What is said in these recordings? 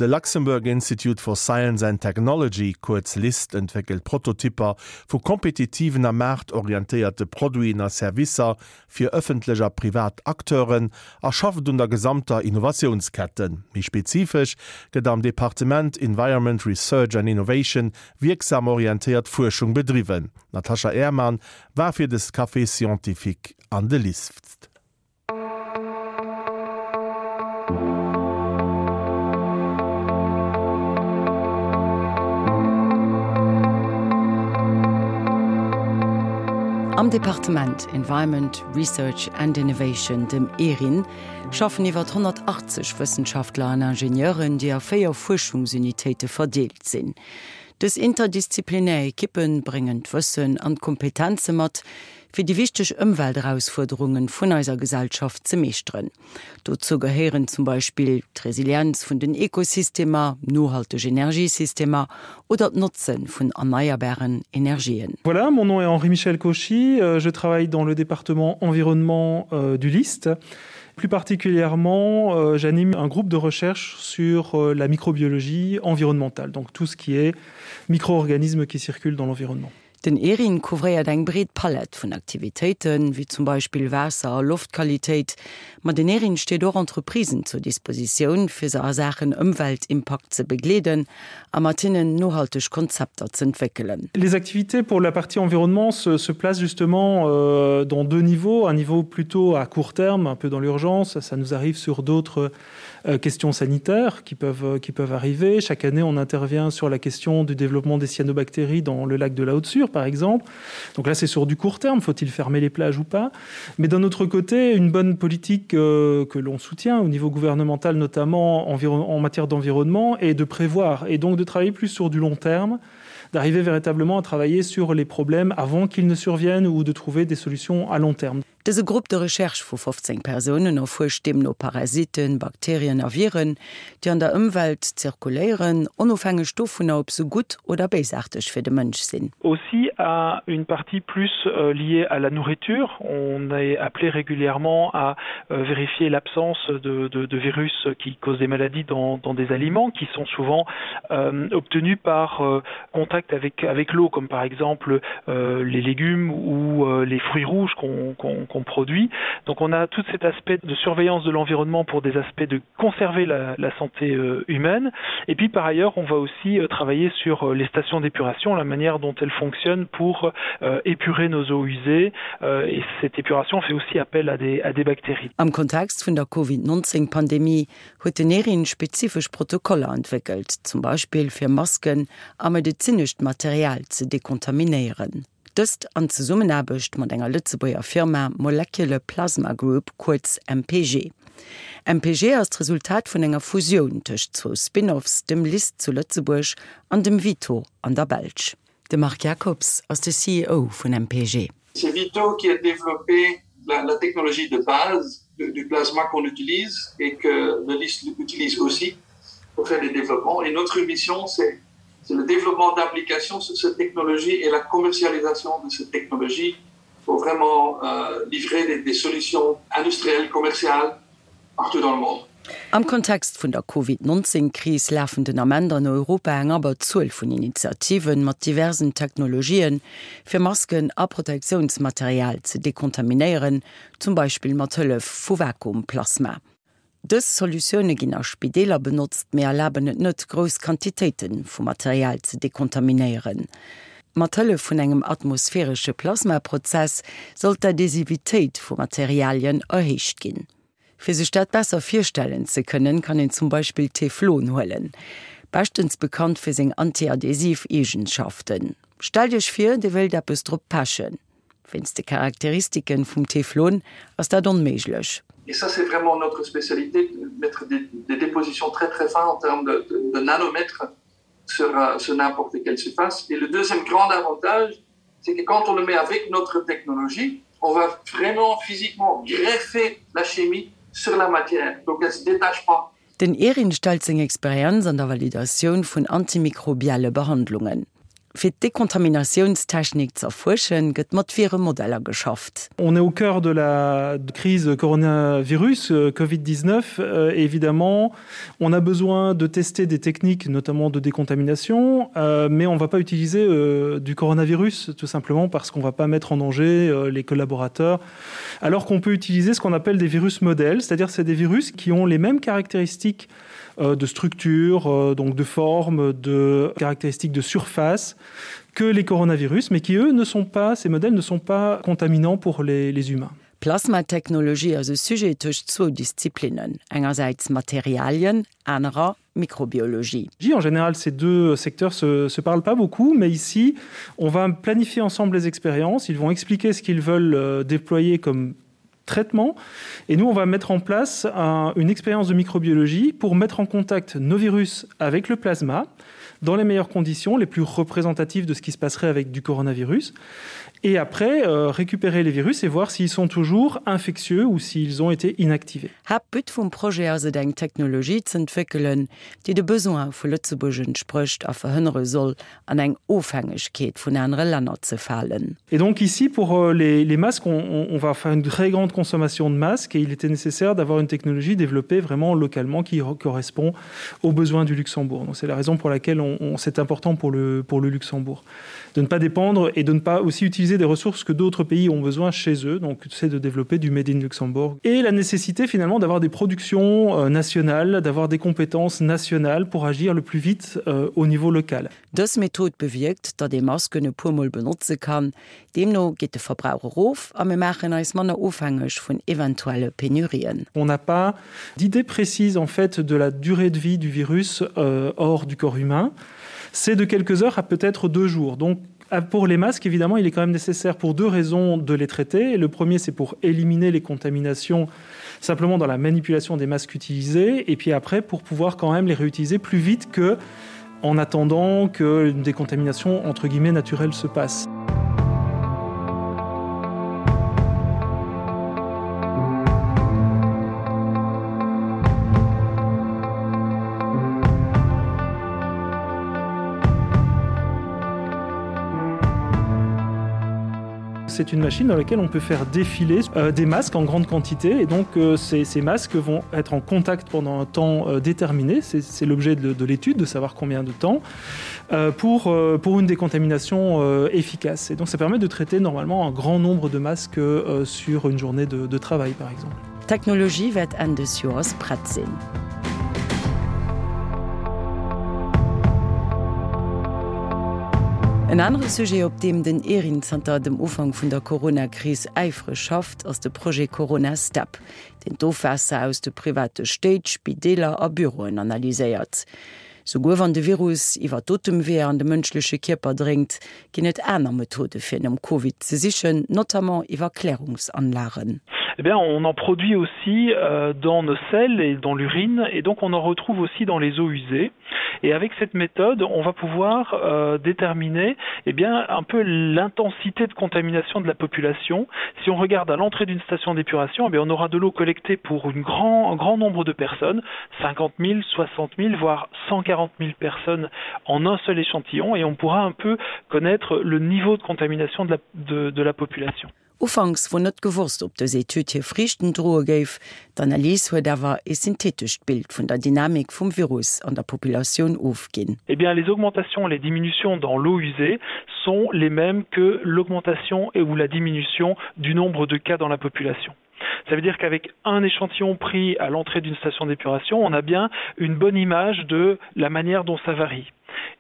De Luxembourg Institute for Science and Technology, kuerz LIST, entwéckelt Prototypper vu kompetitiven a maartorientéierte Produiten a Servicer fir ëffentlech a privat Acteuren a schafft un der gesamter Innovatiounsketten. Méi spezifesch gëtt am Departement Environment, Research and Innovation wierksam orientéiert Fuerschung bedriwwen. D'Natasha Ehrmann war fir des Café Scientifique an de LIST. Am Departement Environment, Research and Innovation, dem ERIN, schaffen iwwer 180 Wëssenschaftler an Ingenieuren, déi a 4 Fuerschungsunitéite verdeelt sinn. Dës interdisziplinär Ekippe bréngen d'Wëssen an d'Kompetenze mat, fir déi wichteg Ëmwelterausfuerderunge vun eiser Gesellschaft ze meeschteren. Dozou gehéieren zum Beispill d'Resilienz vun den Ekosystemer, nohalteg Energiesystemer oder d'Notze vun erneierbaren Energien. Voilà, mon nom est Henri-Michel Cauchy, je travaille dans le département environnement du LIST. Plus particulièrement, j'anime un groupe de recherche sur la microbiologie environnementale, donc tout ce qui est micro-organismes qui circulent dans l'environnement. Den ERIN couvréiert eng breet Palett vun Aktivitéiten, wéi zum Beispill Waasser a Loftqualitéit. Ma den ERIN steet och Entreprisen zur Dispositioun, fir se a Saachen Ëmweltimpakt ze begleeden a mat hinnen nohalteg Konzepter z'entwéckelen. Les activités pour la partie environnement se, se placent justement euh, dans deux niveaux, un niveau plutôt à court terme, un peu dans l'urgence, ça nous arrive sur d'autres euh, questions sanitaires qui peuvent, euh, qui peuvent arriver. Chaque année, on intervient sur la question du développement des cyanobactéries dans le lac de la Haute-Sûre, par exemple. Donc là, c'est sur du court terme, faut-il fermer les plages ou pas Mais d'un autre côté, une bonne politique euh, que l'on soutient au niveau gouvernemental, notamment en matière d'environnement, est de prévoir et donc de travailler plus sur du long terme d'arriver véritablement à travailler sur les problèmes avant qu'ils ne surviennent ou de trouver des solutions à long terme. Dëse Groupe de recherche vu 15 Persounen erfuerscht deemno Parasiten, Bakterien a Viren, déi an der Ëmwelt zirkuléieren, onofhängeg dovunner, ob se gutt oder béisaarteg fir de Mënsch sinn. Aussi à une partie plus liée à la nourriture. On est appelé régulièrement à vérifier l'absence de, de, de virus qui causent des maladies dans, dans des aliments qui sont souvent euh, obtenus par euh, contact avec, avec l'eau, comme par exemple euh, les légumes ou euh, les fruits rouges qu'on qu qu produit. Donc on a tout cet aspect de surveillance de l'environnement pour des aspects de conserver la, la santé euh, humaine. Et puis par ailleurs, on va aussi euh, travailler sur euh, les stations d'épuration, la manière dont elles fonctionnent pour euh, épurer nos eaux usées. Euh, et cette épuration fait aussi appel à des, à des bactéries. Am Kontext vun der Covid-19-Pandemie huet den ERIN spezifesch Protokoller entwéckelt, zum Beispill fir Masken a medezinescht Material ze dekontaminéieren. Dëst an Zesummenaarbecht mat enger Lëtzebuerger Firma Molecular Plasma Group, kuerz MPG. MPG ass d'Resultat vun enger Fusioun tëscht zwou Spin-offs, dem LIST zu Lëtzebuerg an dem Vito an der Belsch. De Marc Jacobs ass de CEO vun MPG. C'est Vito qui a développé la, la technologie de base du, du plasma qu'on utilise et que le LIST utilise aussi pour faire des développements. Et notre mission, c'est le développement d'applications sur cette technologie et la commercialisation de cette technologie pour vraiment euh, livrer des, des solutions industrielles, commerciales partout dans le monde. Am Kontext vun der Covid 19 Kris lafen den Ament an Europa eng Abberzuel vun Initiativen mat diversen Technologien, fir Masken a Protektiounsmaterial ze dekontaminéieren, zum Beispill mat Hëllef vu Vakuumplasma. Dës Solutioune ginn a Spideeler benotzt, mee erlaben et net, grouss Quantitéite vu Material ze dekontaminéieren. Mat Hëllef vun engem atmosphäresche Plasmaprozess soll d'Adhesivitéit vu Materialien erhéicht ginn. Fir sech dat besser virstellen ze kënnen, kann een zum Beispill Teflon huelen, beschtens bekannt fir seng antiadhesiv Eegenschaften. Stellt iech vir, dir wéilt eppes drop pechen. Wéinst de Charakteristiken vum Teflon ass dat onméiglech. Et ça c'est vraiment notre spécialité, mettre des, des dépositions très très fins en termes de, de, de nanomètres sur, euh, sur n'importe quelle surface. Et le deuxième grand avantage, c'est que quand on le met avec notre technologie, on va vraiment physiquement greffer la chimie sur la matière, donc elle se détache pas. Den ERIN stellt seng Experienz an der Validatioun vun antimikrobielle Behandlungen. Fir d'Dekontaminatiounstechnik ze erfuerschen, gëtt mat Viremodeller geschafft. On est au cœur de la crise coronavirus euh, Covid-19 euh, évidemment on a besoin de tester des techniques notamment de décontamination euh, mais on va pas utiliser euh, du coronavirus tout simplement parce qu'on va pas mettre en danger euh, les collaborateurs alors qu'on peut utiliser ce qu'on appelle des virus modèles c'est-à-dire c'est des virus qui ont les mêmes caractéristiques euh, de structure euh, donc de forme de caractéristiques de surface que les coronavirus mais qui eux ne sont pas ces modèles ne sont pas contaminants pour les, les humains. Plasmatechnologie ass e Sujet tëscht zwou Disziplinnen, engersäits Materialien, anerer Mikrobiologie. En général, ces deux secteurs se, se parlent pas beaucoup, mais ici, on va planifier ensemble les expériences, ils vont expliquer ce qu'ils veulent euh, déployer comme traitement. Et nous, on va mettre en place un, une expérience de microbiologie pour mettre en contact nos virus avec le plasma dans les meilleures conditions, les plus représentatives de ce qui se passerait avec du coronavirus. Et après, euh, récupérer les virus et voir s'ils sont toujours infectieux ou s'ils ont été inactivés. Haaptbut vum Projet ass et eng Technologie z'entwéckelen, déi de Besoin vu Lëtzebuerg entsprécht a verhënnere soll, an eng Ofhängegkeet vun anere Länner ze falen. Et donc ici pour euh, les, les masques, on, on, on va faire une très grande consommation de masques et il était nécessaire d'avoir une technologie développée vraiment localement qui correspond aux besoins du Luxembourg. Donc c'est la raison pour laquelle on, on, c'est important pour le, pour le Luxembourg de ne pas dépendre et de ne pas aussi utiliser des ressources que d'autres pays ont besoin chez eux donc c'est de développer du made in Luxembourg et la nécessité finalement d'avoir des productions euh, nationales, d'avoir des compétences nationales pour agir le plus vite euh, au niveau local. Dës Method bewierkt, datt ee Masken e puer Mol benotze kann. Deemno geet de Verbrauch erof a mir maachen eis manner ofhängeg vun eventuelle Penurien. On n'a pas d'idée précise en fait de la durée de vie du virus euh, hors du corps humain. C'est de quelques heures à peut-être deux jours. Donc pour les masques, évidemment, il est quand même nécessaire pour deux raisons de les traiter. Le premier, c'est pour éliminer les contaminations simplement dans la manipulation des masques utilisés et puis après pour pouvoir quand même les réutiliser plus vite que en attendant qu'une décontamination entre guillemets naturelle se passe. C'est une machine dans laquelle on peut faire défiler euh, des masques en grande quantité et donc euh, ces, ces masques vont être en contact pendant un temps euh, déterminé, c'est l'objet de, de l'étude de savoir combien de temps euh, pour, euh, pour une décontamination euh, efficace. Et donc ça permet de traiter normalement un grand nombre de masques euh, sur une journée de, de travail par exemple. D'Technologie wäert Enn des Joers prett sinn. En anere Sujet, op deem den ERIN zanter dem Ufank vun der Corona-Kris äifreg schafft, ass de Projet Corona Step, deen d'Ofwaasser aus de private Stéit, Spideeler a Büroen analyséiert. Souguer wann de Virus iwwer d'Otemweeër an de mënschleche Kierper dréngt, ginn et aner Methode fir nom Covid ze sichen, notamment iwwer Klärungsanlagen. Eh bien, on en produit aussi euh, dans nos selles et dans l'urine et donc on en retrouve aussi dans les eaux usées. Et avec cette méthode, on va pouvoir euh, déterminer eh bien, un peu l'intensité de contamination de la population. Si on regarde à l'entrée d'une station d'épuration, eh bien, on aura de l'eau collectée pour une grand, un grand nombre de personnes, 50 000, 60 000, voire 140 000 personnes en un seul échantillon et on pourra un peu connaître le niveau de contamination de la, de, de la population. Ufanks wor net gewosst, ob dës Etüd hir Friichten droe géif. D'Analys huet awer ee synthetescht Bild vun der Dynamik vum Virus an der Populatioun ofginn. Eh bien, les augmentations et les diminutions dans l'eau usée sont les mêmes que l'augmentation et ou la diminution du nombre de cas dans la population. Ça veut dire qu'avec un échantillon pris à l'entrée d'une station d'épuration, on a bien une bonne image de la manière dont ça varie.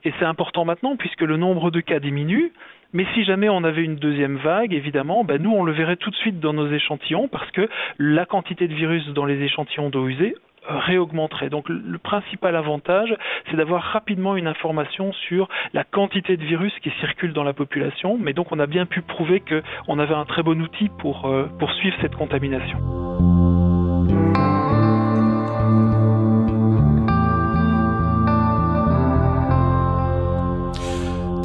Et c'est important maintenant puisque le nombre de cas diminue, mais si jamais on avait une deuxième vague, évidemment, ben nous on le verrait tout de suite dans nos échantillons parce que la quantité de virus dans les échantillons d'eau usée réaugmenterait. Donc le principal avantage, c'est d'avoir rapidement une information sur la quantité de virus qui circule dans la population, mais donc on a bien pu prouver qu'on avait un très bon outil pour euh, poursuivre cette contamination.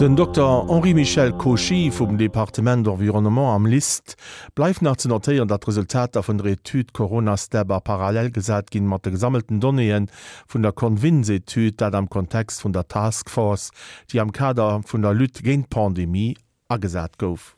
Den Dokter Henri-Michel Cauchy vum Departement Environnement am LIST Bleift nach ze notéieren, datt d'Resultater vun der Etüd Corona-Step a parallel gesat ginn mat de gesammelten Donnéeë vun der Convins-Etüd, dat am Kontext vun der Task Force, déi am Kader vun der Lutte géint d'Pandemie agesat gouf.